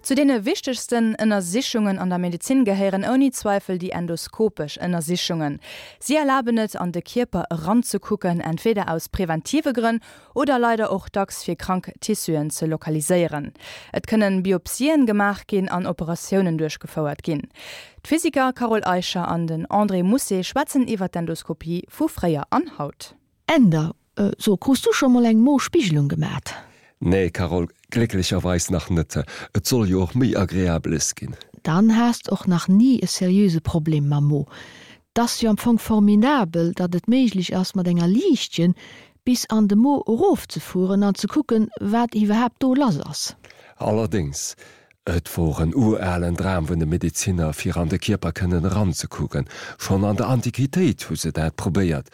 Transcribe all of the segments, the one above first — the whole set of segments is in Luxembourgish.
Zu deene wichtegsten Ënnersichungen an der Medezin gehéieren ouni Zweifel déi endoskopesch Ënnersichungen. Si erlaben et, an de Kierper eranzekucken, entweder aus preventive Grënn oder leider och dacks fir krank Tissuen ze lokaliséieren. Et kënnen Biopsien gemaach ginn an Operatiounen duerchgefouert ginn. D'Physiker Carole Eicher an den André Mousset schwätzen iwwer d'Endoskopie vu fréier an haut. Änder, So, krus du scho mol eng Mo-Spigelung gemat? Nee, Carole, glécklecherweis nach net. Et soll jo och méi Agreabeles ginn. Dann has d'och nach ni e seriöse Problem mam Mo. T'ass jo am Fong formidabel, datt et méiglech ass, mat enger Liichtchen bis an de Mo erofzefueren an ze kucken, wat iwwerhaapt do lass ass. Allerdéngs, et wor en uralen Dram vun de Medezinner, fir an de Kierper kënnen eranzekucken. Schonn an der Antiquitéit hu se dat probéiert.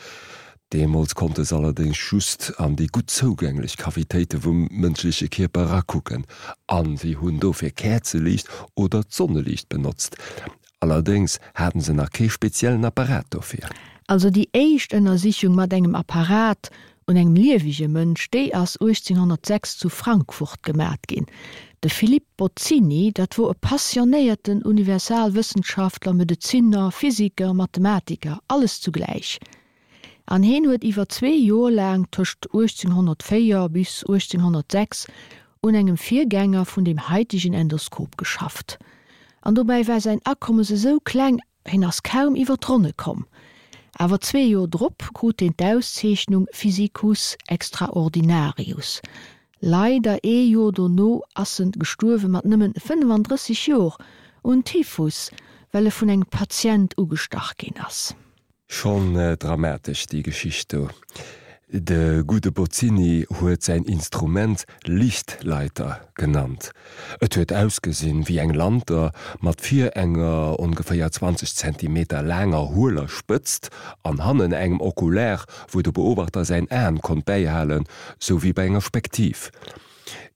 Deemools konnte se allerdéngs just an déi gutt zougänglech Cavitéite vum mënschleche Kierper erakucken, an si hunn dofir Käerzeliicht oder d'Sonneliicht benotzt. Allerdéngs haten se nach kee speziellen Apparat dofir. Also déi éischt Ënnersichung mat engem Apparat un engem liewege Mënsch, déi ass 1806 zu Frankfurt gemat ginn. De Philippe Bozzini, dat wor e passionéierten Universalwëssenschaftler, Medezinner, Physiker, Mathematiker, alles zugläich. An heen huet iwwer zwee Jor laang, tëscht 1804 bis 1806, un engem Virgänger vun deem haitegen Endoskop geschafft. An dobäi war säin Akommes esou kleng, heen ass kaum iwwer d'Ronne komm. Awer zwee Jor drop krut heen d'Auszeechnung Physicus extraordinarius. Leider ee Jor dono ass en gestuerwe mat nëmmen 35 Jor un Typhus, well e vun engem Patient ugestach ginn ass. Schonn dramatesch déi Geschicht do. De gudde Bozzini huet säin Instrument Lichtleiter genannt. Et huet ausgesinn wéi eng Lanter mat vir enger ongeféier 20 Zentimeter laanger hueler Spëtzt an hannen engem Okular, wou de Beobachter säin Aen konnt bäihalen, sou wéi bei enger Spektiv.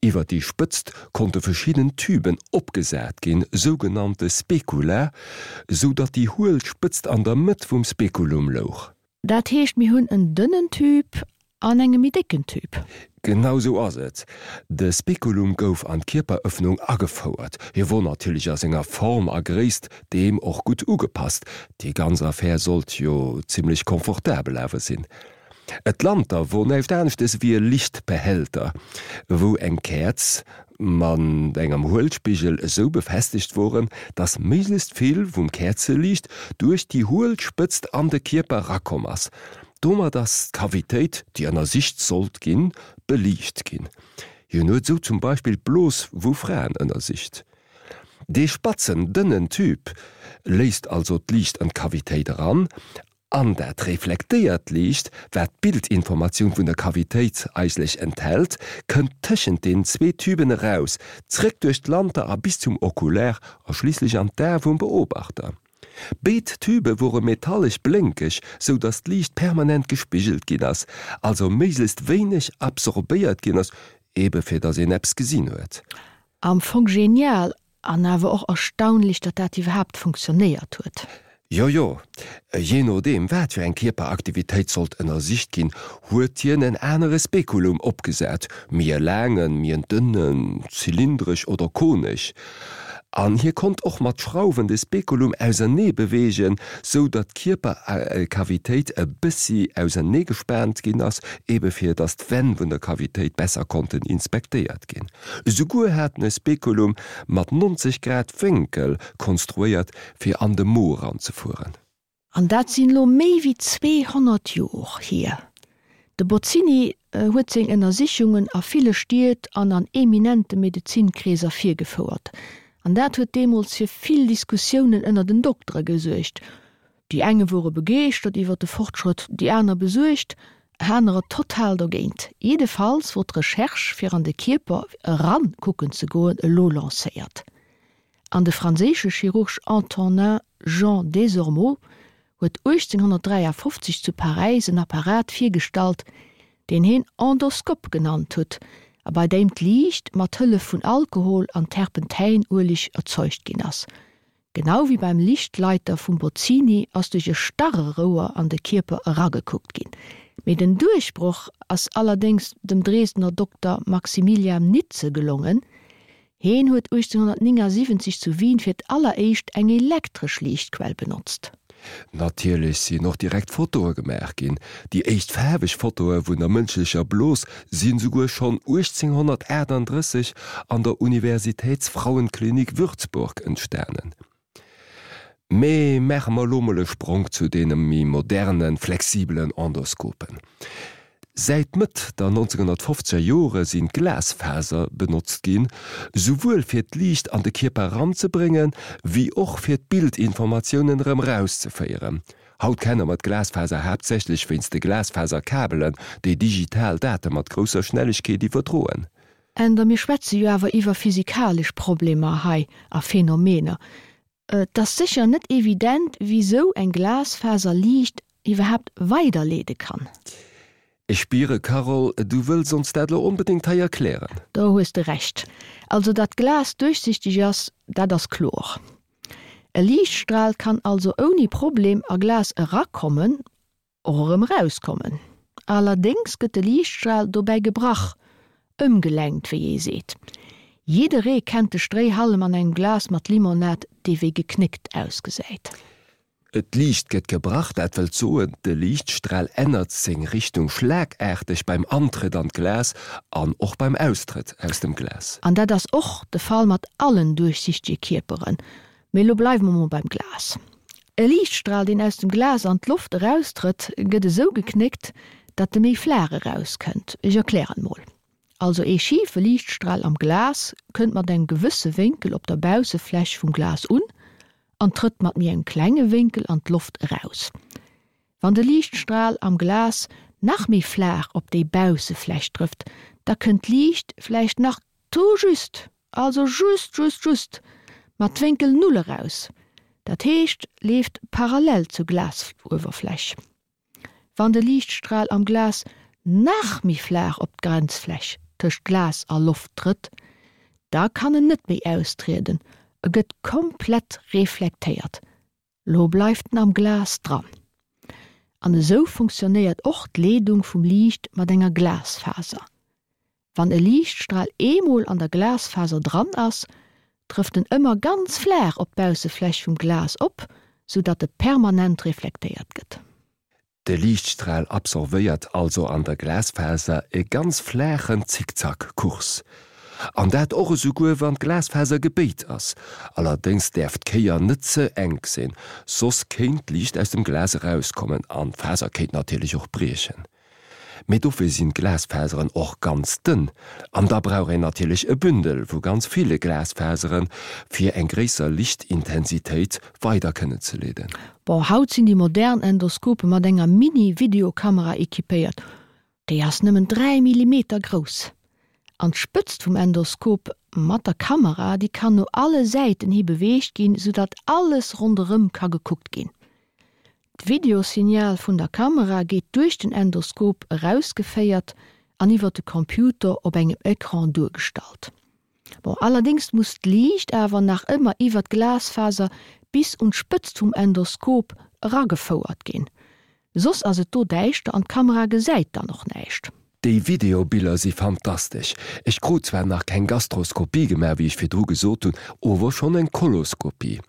Iwwer déi Spëtzt konnte verschidden Tüben opgesat ginn, sougenannte Specula, sou datt déi huel Spëtzt an der Mëtt vum Speculum louch. Dat heescht, mir hunn en dënnen Tüb an enge méi décken Tüb. Genau sou ass et. De Speculum gouf an d'Kierperëffnung agefouert. Hie wor natierlech a senger Form a Gréisst deem och gutt ugepasst. Déi ganz Affär sollt jo zimmlech confortabel awer sinn. Et Lanter wor näischt aneschtes ewéi e Lichtbehälter, wou eng Käerz mat engem Huelspigel esou befestegt woren, dass méiglechst vill vum Käerzeliicht duerch déi huel Spëtzt an de Kierper rakomm ass. Domat ass d'Kavitéit, déi ënnersicht sollt ginn, beliicht ginn. Hien huet esou zum Beispill d'Blos vu Fraen ënnersicht. Dee spatzen, dënnen Tüb léisst also d'Liicht an d'Kavitéit eran An dat reflektéiert Liicht, wat d'Bildinformatioun vun der Kavitéit eigentlech enthält, kënnt tëschent den zwee Tüben eraus, zréck duerch d'Lanter a bis zum Oculaire a schliisslech an d'Ae vum Beobachter. Béid Tübe wore metallesch blénkeg, sou datt d'Liicht permanent gespigelt ginn ass, also méiglechst wéineg absorbéiert ginn ass, ebe fir datt een eppes gesinn huet. Am Fong genial, An awer och erstaunlech, datt dat iwwerhaapt funktionéiert huet. Jo, jo. Jee nodeem wat fir eng Kierperaktivitéit sollt ënnersicht ginn, huet hien en anere Spekulum opgesat, méi e laangen, méi en dënnen, zylindresch oder konesch. An hie konnt och mat Schrauwen de Spekulum ausernee beweegen, sou datt d'Kierperkavitéit e bëssi ausernee gespaant ginn ass, ebe fir datt d'Wänn vun der Kavitéit besser konnten inspektéiert ginn. Esouguer hat en e Spekulum mat 90 Grad Wénkel konstruéiert fir an de Mo eranzefueren. An dat sinn elo méi wéi 200 Jor hier. De Bozzini huet seng Ënnersichungen a ville Stied an an eminente Medezinkreeser virgefouert. An dat huet deemools fir vill Diskussiounen ënner den Doktere gesuergt. Déi enge wore begeeschtert iwwer de Fortschrëtt, déi aner besuergt, anerer total dogéint. Jiddefalls wor d'Recherche fir an de Kierper eran kucken ze goen elo lancéiert. An de franséische Chirurg Antonin Jean Desormeaux huet 1853 zu Paräis en Apparat virgestallt, deen heen Endoskop genannt huet a bei deem d'Liicht mat Hëllef vun Alkohol an Terpentäinueleg erzeugt ginn ass. Genau wéi beim Lichtleiter vum Bozzini ass duerch e starre Rouer an de Kierper eragekuckt ginn. Mee den Duerchbroch ass allerdéngs dem Dresdner Dokter Maximilian Nitze gelongen. Heen huet 1879 zu Wien fir d'alleréischt eng elektresch Liichtquell benotzt. Natierlech sinn och direkt Fotoe gemaach ginn. Déi éischt faarweg Fotoe vun der mënschlecher Blos si souguer schonn 1838 an der Universitätsfrauenklinik Würzburg entstanen. Mee maache mer elo mol e Spronk zu deene méi modernen, flexibelen Endoskopen. Säit Mëtt der 1950er Jore sinn Glasfaser benotzt ginn, souwuel fir d'Liicht an de Kierper eranzebréngen, wéi och fir d'Bildinformatiounen erëm erauszeféieren. Haut kenne mer d'Glasfaser haaptsächlech wéinst de Glasfaserkabelen, déi digital Date mat grousser Schnellegkeet iwwerdroen. Änder Mir schwätze jo awer iwwer physikalesch Problemer hei a Phänomener. Et ass sécher net evident, wisou eng Glasfaser Liicht iwwerhaapt weiderleede kann. Ech spiere, Carole, du wëlls ons dat lo onbedéngt hei erklären. Do hues de Recht. Also datt Glas duerchsichteg ass, dat ass kloer. E Liichtstral kann also ouni Problem a Glas erakommen och erëm erauskommen. Allerdéngs gëtt de Liichtstral dobäi gebrach, ëmgelenkt, wéi ee seet. Jidderee kennt de Stréihallem an engem Glas mat Limonad, dee wéi geknéckt ausgesäit. D'Liicht gëtt gebrach, dat wëllt soen, de Liichtstral ännert seng Richtung schlagaarteg beim Antrëtt an d'Glas an och beim Austrëtt aus dem Glas. An dat ass och de Fall mat allen duerchsichtege Kierperen. Mee elo bleiwe mer mol beim Glas. E Liichtstral, deen aus dem Glas an d'Loft eraustrëtt, gëtt esou geknéckt, datt e méi flaach erauskënnt. Ech erklären mol. Also ee schife Liichtstral am Glas kënnt mat engem gewësse Wénkel op der Baussefläch vum Glas un an trëtt mat méi engem klenge Wénkel an d'Loft eraus. Wann de Liichtstral am Glas nach méi flaach op déi Baussefläch trëfft, da kënnt d'Liicht vläicht nach tout juste, also just just just, mat Wénkel Null eraus, dat heescht leeft parallel zur Glasuewerfläch. Wann de Liichtstral am Glas nach méi flaach op d'Grenzfläch tëscht Glas a Loft trëtt, da kann en net méi austrieden, e gëtt komplett reflektéiert, Lo bleift en am Glas dran. An esou funktionéiert och d'Leedung vum Liicht mat enger Glasfaser. Wann e Liichtstral eemol an der Glasfaser dran ass, trëfft en ëmmer ganz flaach op d'Baussefläch vum Glas op, sou datt e permanent reflektéiert gëtt. De Liichtstral absorvéiert also an der Glasfaser e ganz flaachen Zickzack-Kurs. An dat och esouguer wann d'Glasfaser gebéit ass. Allerdéngs däerf d'Kéier net ze enk sinn, soss kéint d'Liicht aus dem Glas erauskommen an d'Faser kéint natierlech och briechen. Mee dofir sinn d'Glasfaseren och ganz dënn. An da brauch een natierlech e Bündel vu ganz ville Glasfaseren, fir eng gréisser Lichtintensitéit weider kënnen ze leeden. Bon, haut sinn déi modern Endoskope mat enger Mini-Videokamera equipéiert. Déi ass nëmmen 3 Millimeter grouss. An d'Spëtzt vum Endoskop mat der Kamera, déi kann no alle Säiten hi beweegt ginn, soudatt alles ronderëm ka gekuckt ginn. D'Videosignal vun der Kamera geet duerch den Endoskop erausgeféiert an iwwer de Computer op engem Ecran duergestallt. Bon, allerdéngs muss d'Liicht awer nach ëmmer iwwer d'Glasfaser bis un d'Spëtzt vum Endoskop eragefouert ginn, soss ass et do däischter an d'Kamera gesäit dann och näischt. Déi Videobiller si fantastesch. Ech krut zwar nach keng Gastroskopie gemaach, wéi ech virdru gesot hunn, ower schonn eng Koloskopie.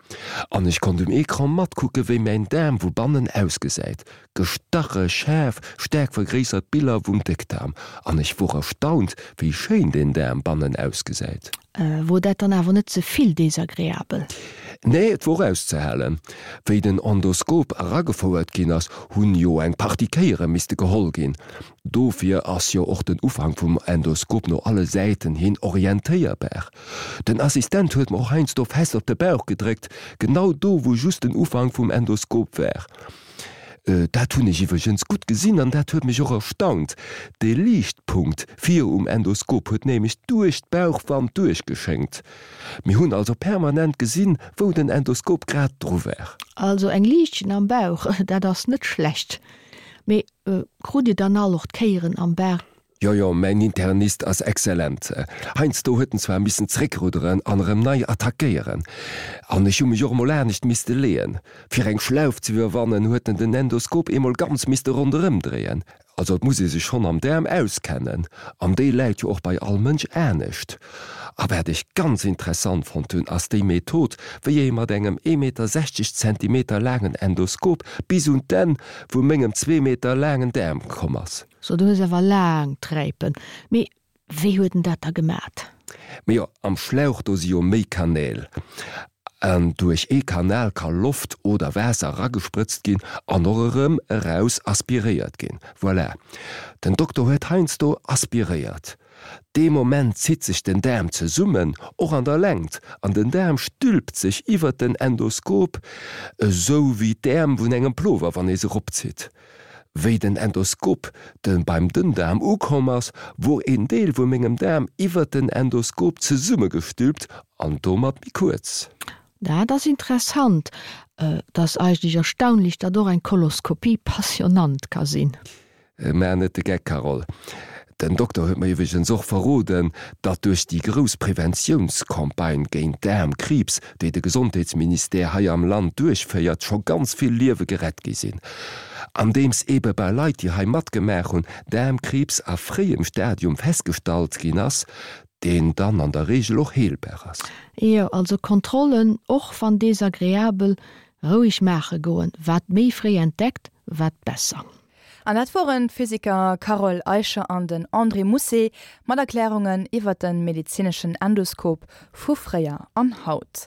An ech konnt um Ecran matkucke wéi mäin Daarm vu bannen ausgesäit. Gestache schaarf, staark vergréissert Biller vum Déckdaarm. An ech wor erstaunt, wéi schéin deen Daarm bannen ausgesäit. Wor dat dann awer net ze vill desagreabel? Nee, et wor auszehalen. Wéi den Endoskop eragefouert ginn ass, hunn jo eng Partie Kéiere misste geholl ginn. Dofir ass jo och den Ufank vum Endoskop no alle Säiten hin orientéierbar. Den Assistent huet mer och heiansdo fest op de Bauch gedréckt, genau do wou just den Ufank vum Endoskop war. Dat hunn ech iwwregens gutt gesinn an dat huet mech och erstaunt. De Liichtpunkt vir um Endoskop huet nämlech duerch d'Bauchwand duerchgeschéngt. Mir hunn also permanent gesinn, wou den Endoskop grad dru war. Also eng Liichtchen am Bauch, dat ass net schlecht. Mee krut Dir dann all och d'Kéieren am Bauch? Jo, jo, mäin Internist ass excellent. Heiansdo huet en zwar missen zréckrudderen an erëm nei attackéieren. An ech hu mech och emol anescht misste leeën. Fir eng Schlauf ze iwwerwannen, huet en den Endoskop eemol ganz misste ronderëm dréien. Also et muss ee sech schonn am Daarm auskennen, an déi läit jo och bei all Mënsch anescht. A wat ech ganz interessant fonnt hunn, ass déi Method, wéi ee mat engem ee Meter 60 Zentimeter laangen Endoskop bis un d'Enn vu mengem zwee Meter laangen Daarm komm ass. So, du hues awer laang Träipen. Mee Wéi huet en dat da gemat? Mee jo, am Schlauch do si jo méi Kanäl. An duerch ee Kanal ka Loft oder Waasser eragesprëtzt ginn an och erëm eraus aspiréiert ginn. Voilà. Den Dokter huet heiansdo aspiréiert. Dee Moment zitt sech den Daarm zesummen, och an der Längt, an den Daarm stülpt sech iwwert den Endoskop, esou wéi d'Äerm vun engem Plover, wann ee se eropzitt. Wéi den Endoskop de beim Dënndaarm ukomm ass, wor een Deel vu mengem Daarm iwwert den Endoskop zesummegestülpt an domat méi kuerz. Dat ass interessant. Et ass eigentlech erstaunlech, datt och eng Koloskopie passionnant ka sinn. Maach net de Geck, Carole. Den Dokter huet mer iwwregens och verroden, datt duerch déi grouss Preventiounscampagne géint Daarmkriibs, déi de Gesondheetsministère hei am Land duerchféiert, scho ganz vill Liewe gerett gi sinn. Andeems eebe bei Leit, déi hei matgemaach hunn, Daarmkriibs a fréiem Stadium festgestallt ginn ass, deen dann an der Reegel och heelbar ass. Jo, also Kontrollen, och wann desagreabel, roueg maache goen. Wat méi fréi entdeckt, wat besser. An dat woren d'Physiker Carole Eicher an den André Mousset mat Erklärungen iwwer de medezineschen Endoskop vu fréier an haut.